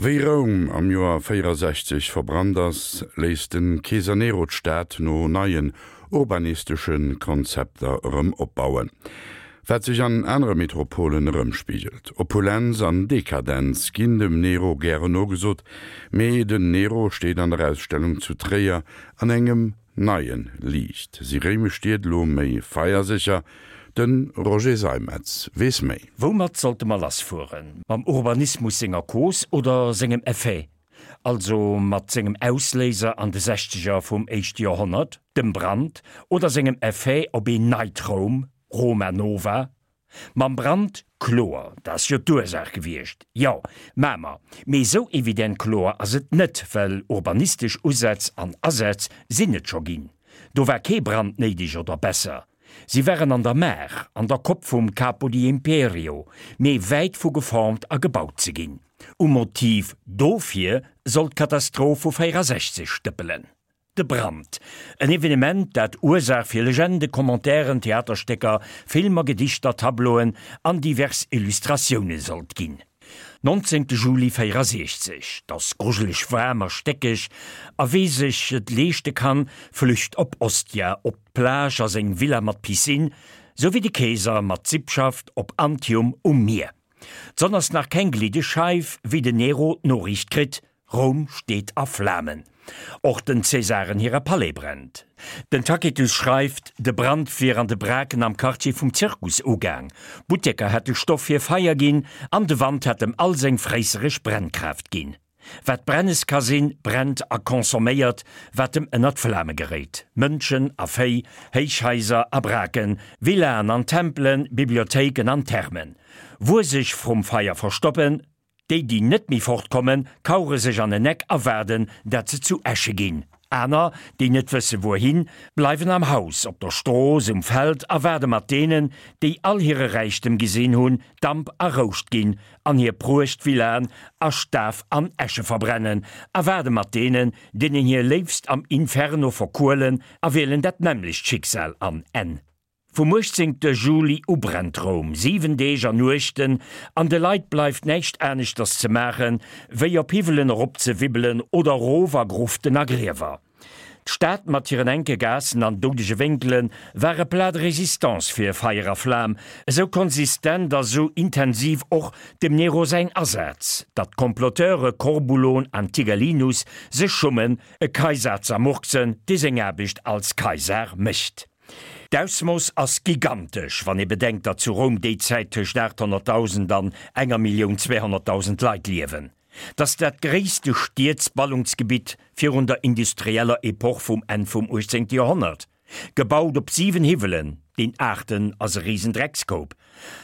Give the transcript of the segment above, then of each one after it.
Wéi Roum am Joer 64 verbrannt ass, léisst de Keeser Nero d'Stad no neien urbanistesche Konzepter erëm opbauen. Wat sech an anere Metropolen erëmspigelt. Opulenz an Dekadenz ginn dem Nero gären nogesot, mee den Nero steet an der Ausstellung zu Tréier an engem neie Liicht. Si réimesch Stied elo méi feiersécher? De Roger Seimetz weess méi. Woumat sollte mer lassfueren? Mam Urbanismus senger Cause oder sengem Effet? Also mat sengem Ausléiser an de Sechzeger vum éischte Joerhonnert, dem Brand, oder sengem Effet op een neit Roum, Roma Nova? Mam Brand, kloer, dat ass jo d'Ursaach gewiescht, jo, mä mer, mee esou evident kloer ass et net, well urbanistesch Usätz an Asätz sinn et scho ginn. Do war kee Brand néideg oder besser, si waren an der Maach, an der Kopp vum Capo di Imperio, mee wäit vu geformt a gebaut ze ginn. Um Motiv dofir soll d'Katastroph vu 64 stëppelen. De Brand, en Evenement, dat Ursaach fir Legende, Commentairen, Theaterstécker, Filmer, Gedichter, Tableauen an divers Illustratioune sollt ginn. 19 Juli 64, 't ass grujeleg waarm a stéckeg, a wee sech et leeschte kann, flücht op Ostia, op d'Plage a seng Villa mat Piscine, sou wéi de Keeser mat Sippschaft op Antium um Mier. D'Sonn ass nach keng gliddeg Scheif, wéi den Nero d'Noriicht kritt, Roum steet a Flamen. Och den Cäsaren hire Palais brennt. Den Tacitus schreift, de Brand wier an de Braken am Quartier vum Zirkus ugaang, Butteker hätte Stoff fir Feier ginn an de Wand hätt em all seng fréissereg Brennkraaft ginn. Wat brennes ka sinn, brennt a consomméiert, wat em ënner d'Flame geréit, Mënschen a Véi, Héichhaiser a Braken, Villaen an Tempelen, Bibliothéiken an Thermen. Wuer sech vrum Feier verstoppen, Déi, déi net méi fortkommen, kauere sech an en Eck a waarden, dat se zu Äsche ginn. Aner, déi net wësse wuerhin, bleiwen am Haus, op der Strooss, um Feld a waarde mat deenen, déi all hire Räichtem gesinn hunn, Damp a Rouscht ginn an hir Pruechtvillaen a Staf an Äsche verbrennen, a waarde mat deenen, deenen hir Léifst am Inferno verkuelen a wielen dat nämmlecht Schicksal an Enn. Vum 18 Juli u brennt Roum, 7 Deeg an Nuechten, an de Leit bleift näischt aneschters ze maachen, wéi op Hiwwelen eropzewibbelen oder erof a Gruften a Griewer. D'Stad mat hiren enke Gaassen an doudege Wénkele war e Plat de résistance fir Feier a Flam, esou konsistent a sou intensiv och dem Nero säin Asaz, datt d'Comploteure Corbulon an Tigellinus sech schummen, e Kaisar z'ermurksen, dee seng Aarbecht als Kaisar mécht. D'Ausmooss ass gigantesch, wann ee bedenkt, datt zu Roum déi Zäit tëscht 800.000 an enger Millioun 200.000 Leit liewen. 't ass dat gréisste Stiedsballungsgebitt virun der industrieller Epoch vum Enn vum 18. Joerhonnert. Gebaut op 7 Hiwwelen, deen aachten ass e Risendreckskoup.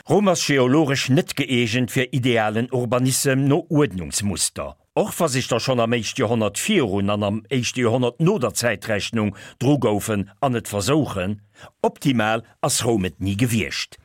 Roum ass geologesch net gëeegent fir idealen Urbanissem no Uerdnungsmuster. Och wa sech der schonn am éischte Joerhonnert virun an am éischte Joerhonnert no der Zäitrechnung dru goufen an et versouchen, optimal ass Roum et ni gewiescht.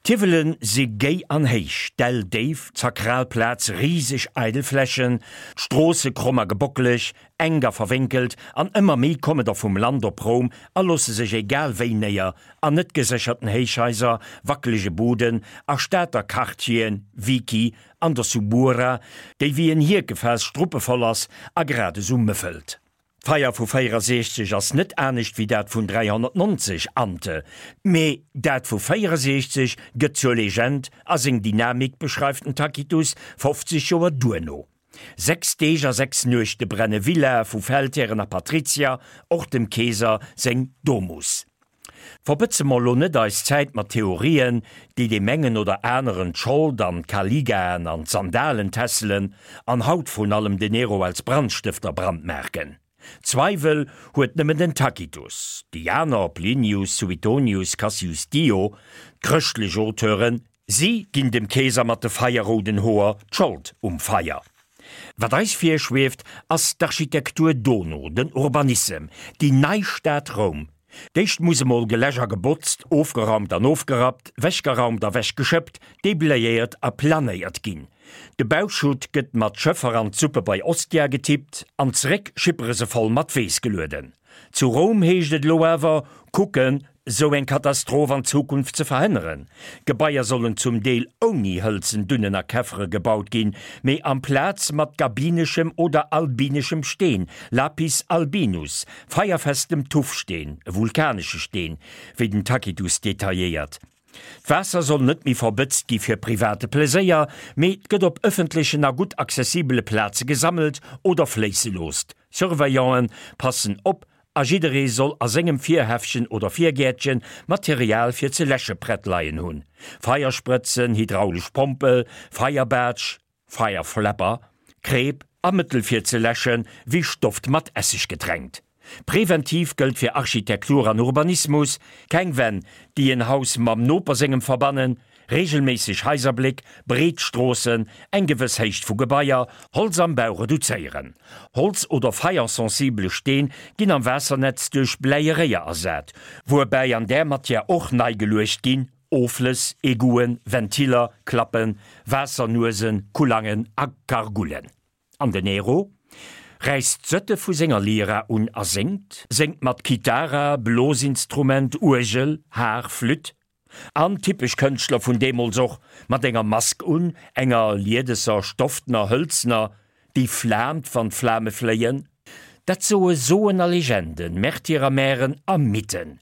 D'Hiwwele si géi an héich, d'Däll déif, d'sakral Plaz riseg eidel Flächen, d'Stroosse kromm a gebockeleg, enk a verwénkelt, an ëmmer méi komme der vum Land op Roum a loosse sech egal wéi néier, an net gesécherten Héichhaiser, wackelege Buden a Stater Quartieren, Vici, An der Subura, déi wéi en Hierkefaass struppevoll ass a grad esou mëffelt. D'Feier vu 64 ass net anescht wéi dat vun 390 ante, mee dat vu 64 gëtt zur Legend a seng Dynamik beschreift den Tacitus 50 Joer duerno. Sechs Deeg a sechs Nuechte brenne Villae vu Feldhären a Patrizier, och dem Keeser seng Domus. Verbëtze mer elo net eis Zäit mat Theorien, déi deem engen oder aneren d'Schold an d'Caligaen an d'Sandalen tässelen an haut vrun allem den Nero als Brandstëfter brandmarken. Zweiwel huet nëmmen den Tacitus. Déi aner, Plinius, Suetonius, Cassius Dio, d'chrëschtlech Auteuren, Si ginn dem Keeser mat de feierrouden Hoer d'Schold um Feier. Wat eis virschwieft, ass d'Architektur dono, den Urbanissem, déi nei Stad Roum. D'éischt muss emol geläsch a gebotzt, ofgeraumt an ofgerappt, wechgeraumt a wechgeschëppt, deblayéiert a planéiert ginn. De Bauschutt gëtt mat Schëffer an d'Suppe bei Ostia getippt an zeréck schippere se voll mat Weess gelueden. Zu Roum heescht et elo awer, kucken! sou eng Katastroph an Zukunft ze verhënneren. Gebaier sollen zum Deel ouni hëlzen Dunnen a Käffere gebaut ginn, mee amplaz mat gabineschem oder albineschem Steen, Lapis albinus, feierfestem Tuffsteen, e vulkanesche Steen, wéi den Tacitus detailléiert. D'Waasser soll net méi verbëtzt gi fir private Pleséier, mee 't gëtt op ëffentlechen a gutt accessibele Plaze gesammelt oder fléisse loosst. Surveillanten passen op a jidderee soll a sengem Virhäffchen oder Virgäertchen Material fir ze läsche prett leien hunn, Feiersprëtzen, hydraulesch Pompel, Feierbaatsch, Fireflapper, Kreep a Mëttel fir ze läschen, wéi Stofft mat Esseg getränkt. Präventiv gëllt fir Architektur an Urbanismus, keng Wänn, déi en Haus mam Noper sengem verbannen, regelméisseg Haiserbléck, breet Stroossen, eng gewëss Héicht vu Gebaier, Holz am Bau reduzéieren. Holz oder feiersensibele Steen ginn am Waassernetz duerch bläie Réier ersat, wuerbäi an där Matière och nei geluecht ginn, Offlëss, Egouen, Ventiller, Klappen, Waassernuesen, Kulangen a Gargullen. An den Nero räisst d'Sëtte vu senger Lyra un a séngt, séngt mat Kithara, Blosinstrument, Uergel, Har, Flütt. An, typesch Kënschtler vun deemools och, mat enger Mask un, enger liedesser, stoftener, hëlzener, déi flaamt, wann d'Flame fléien. Dat soe Soen a Legenden, Märtyrer, Mären a Mythen.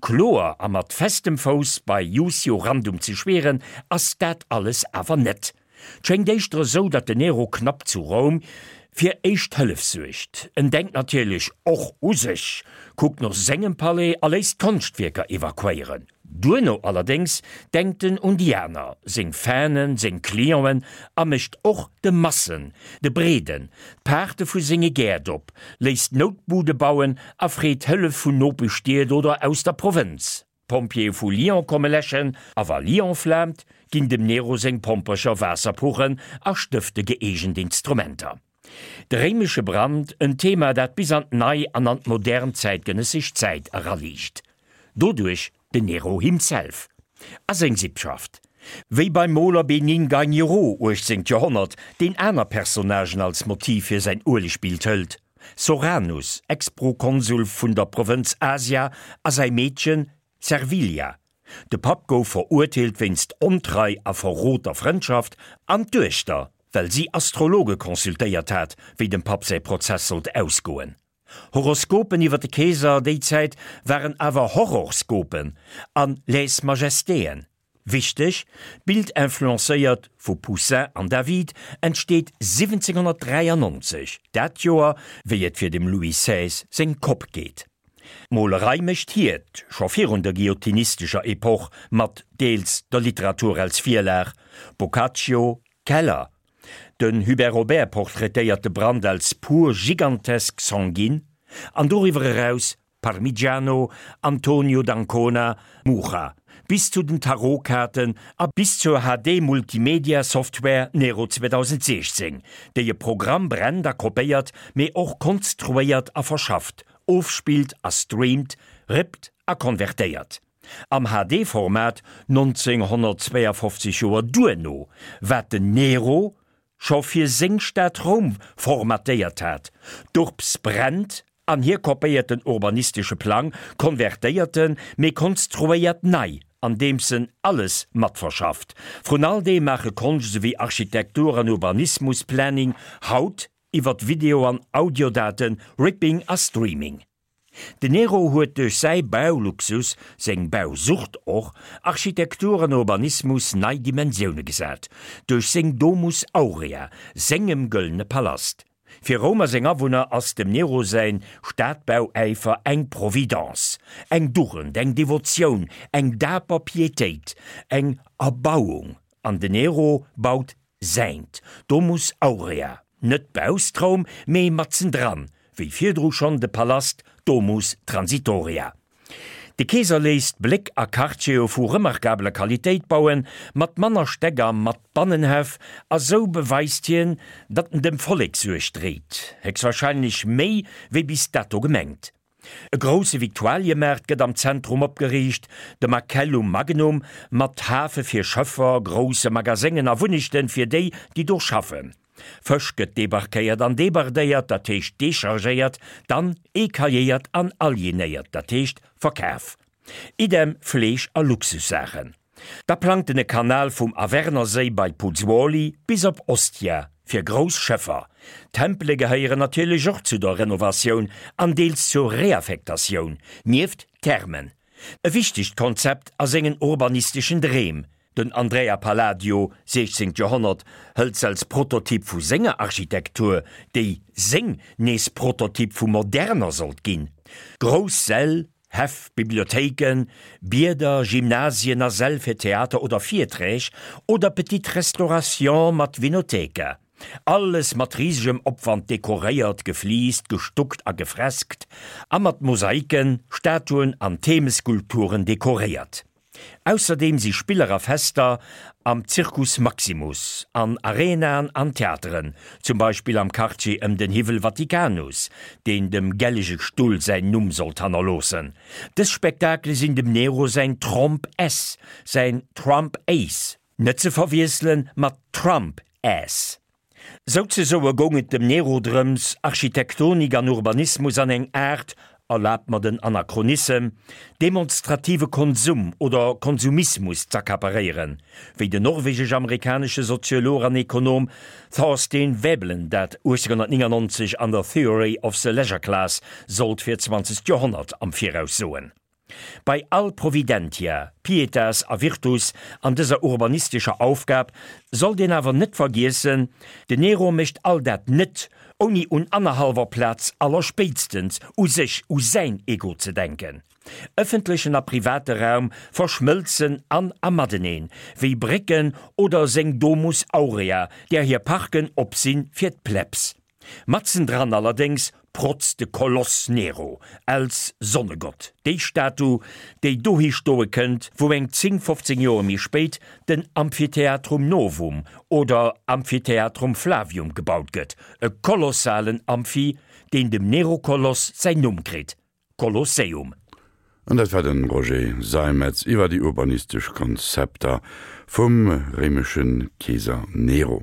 Kloer a mat festem Fouss bei Jusio Randum ze schwieren, ass dat alles awer net. 'T schéngt éischter esou, datt den Nero knapp zu Roum fir éischt Hëllef suergt. En denkt natierlech och u sech, kuckt no sengem Palais a léisst Konschtwierker evakuéieren. Duerno allerdéngs denkt en un déi aner, seng Fanen, seng Clienten a mécht och de Massen, de Breeden, d'Paarte vu senge Gäert op, léisst Noutbude bauen a freet Hëllef vun Nopeschstied oder aus der Provënz. D'Pompjeeë vu Lyon komme läschen a wa Lyon flaamt, ginn dem Nero seng Pompercher Waasserpuchen a Stëfte gëeegent Instrumenter. De réimesche Brand, en Thema, dat bis an d'nei an an d'modern zäitgenëssesch Zäit eraliicht. Doduerch den Nero himself a seng Sippschaft. Wéi beim Moler Bénigne Gagnereau, 18. Joerhonnert, deen aner Personnagen als Motiv fir säin Uelegbild hëlt, Soranus, Ex-Prokonsul vun der Provënz Asia, a säi Meedchen Servilia. De Papp gouf verurteelt wéinst Ontrei a Verrot der Frëndschaft, an d'Duechter, well si Astrologe consultéiert hat, wéi dem Papp säi Prozess sollt ausgoen. Horoskopen iwwer de Keeser déi Zäit waren awer Horrorskopen an Lèse-Majestéen. Wichteg, D'Bild influencéiert vu Poussin an David entsteet 1793, dat Joer wéi et fir dem Louis xvi seng Kopp geet. D'Molerei mécht hiert, scho virun der guillotinistescher Epoch, mat deels der Literatur als Virlag, Boccaccio, Keller. Den Hubert Robert portraitéiert de Brand als pur gigantesk Sanguine, an doriwwer eraus Parmigiano, Antonio d'Ancona, Mucha, bis zu den Tarotkaarten a bis zur HD-Multimedia-Software Nero 2016, déi e Programm brennt a kopéiert, mee och konstruéiert a verschafft, ofspillt a streamt, rippt a konvertéiert. Am HD-Format 1952 Joer duerno, wat den Nero scho fir seng Stad Roum formatéiert hat, d'Urbs brennt an hie kopéiert den urbanistesche Plang, konvertéiert en, mee konstruéiert nei, andeems en alles matverschafft. Vrun all deem maache Konscht esouwéi Architektur an Urbanismusplanning haut iwwert Video an Audiodaten, Ripping a Streaming. Den Nero huet duerch säi Bauluxus, seng Bausucht och, Architektur an Urbanismus nei Dimensioune gesat, duerch seng Domus Aurea, sengem gëllene Palast. Fir Roum a seng Awunner ass dem Nero säin Stadbauäifer eng Providence, eng Dugend, eng Devotioun, eng daper Pietéit, eng Erbauung. An den Nero baut säint Domus Aurea, net bausst Roum, mee matzendran, wéi virdru schonn de Palast Domus Transitoria. De Keeser léisst Bléck a Quartiere vu remarkabeler Qualitéit bauen, mat manner Stäck a mat Bannenhäff, a sou beweist hien, datt en dem Vollek Suerg dréit, héchstwahrscheinlech méi wéi bis dato gemengt. E grousse Victualiemaart gëtt am Zentrum opgeriicht, de Macellum Magnum, mat Hafe fir Schëffer, grousse Magaséngen a Wunnechten fir déi, déi do schaffen. Fësch gëtt debarquéiert an debardéiert, dat heescht dechargéiert, dann ecailléiert an alienéiert, dat heescht verkaf. Idem Fleesch a Luxussaachen. Da plangt en e Kanal vum Avernerséi bei Puzzuoli bis op Ostia fir grouss Schëffer. Tempele gehéieren natierlech och zu der Renovatioun an deels zur Reaffektatioun, nieft Thermen. E wichtegt Konzept a sengen urbanisteschen Dreem. Den Andrea Palladio, 16. Joerhonnert, hëlt s'als Prototyp vu senger Architektur, déi seng nees Prototyp vu moderner sollt ginn. Grouss Säll, Häff, Bibliothéiken, Bieder, Gymnasien a Säll fir Theater oder Virträg oder Petite Restauration mat Vinotheka. Alles mat risegem Opwand dekoréiert, gefliist, gestuckt a gefreskt a mat Mosaiken, Statuen an Themeskulpturen dekoréiert. Ausserdeem si Spiller a Fester am Circus Maximus, an Arenaen an Theateren, zum Beispill am Quartier ëm den Hiwwel Vaticanus, deen dem Gellege Stull säin Numm sollt hannerloossen. Dës Spektakele sinn dem Nero säin Tromp S, säin Trump Ace, net ze verwiessele mat Trump Ass. Souzesoe goung et dem Nero drëms, Architektonik an Urbanismus an eng Aart, erlaabt mer den Anachronissem, demonstrative Konsum oder Konsumismus z'accaparéieren, wéi den norwegesch-amerikanesche Soziolog an Ekonom Thorstein Veblen dat 1899 an der Theory of the Leisure Class sollt fir d'zwanzegt Joerhonnert am Viraus soen. Bei all Providentia, Pietas a Virtus an dëser urbanistescher Aufgab sollt een awer net vergiessen, den Nero mécht all dat net, ouni un annerhallwer Plaz allerspéitstens u sech, u säin Ego ze denken. Ëffentlechen a private Raum verschmëlzen an a mateneen, wéi Brécken oder seng Domus Aurea, där hir Parken op sinn fir d'Plebs. Matzendran allerdéngs protzt de Koloss Nero als Sonnegott, déi Statu, déi dohi stoe kënnt, wou eng 10, 15 Joer méi spéit den Amphitheatrum Novum oder Amphitheatrum Flavium gebaut gëtt, e kolossalen Amphi, deen dem Nero-Koloss säin Numm kritt, Kolosseum. An dat war de Roger Seimetz iwwer déi urbanistesch Konzepter vum réimesche Keeser Nero.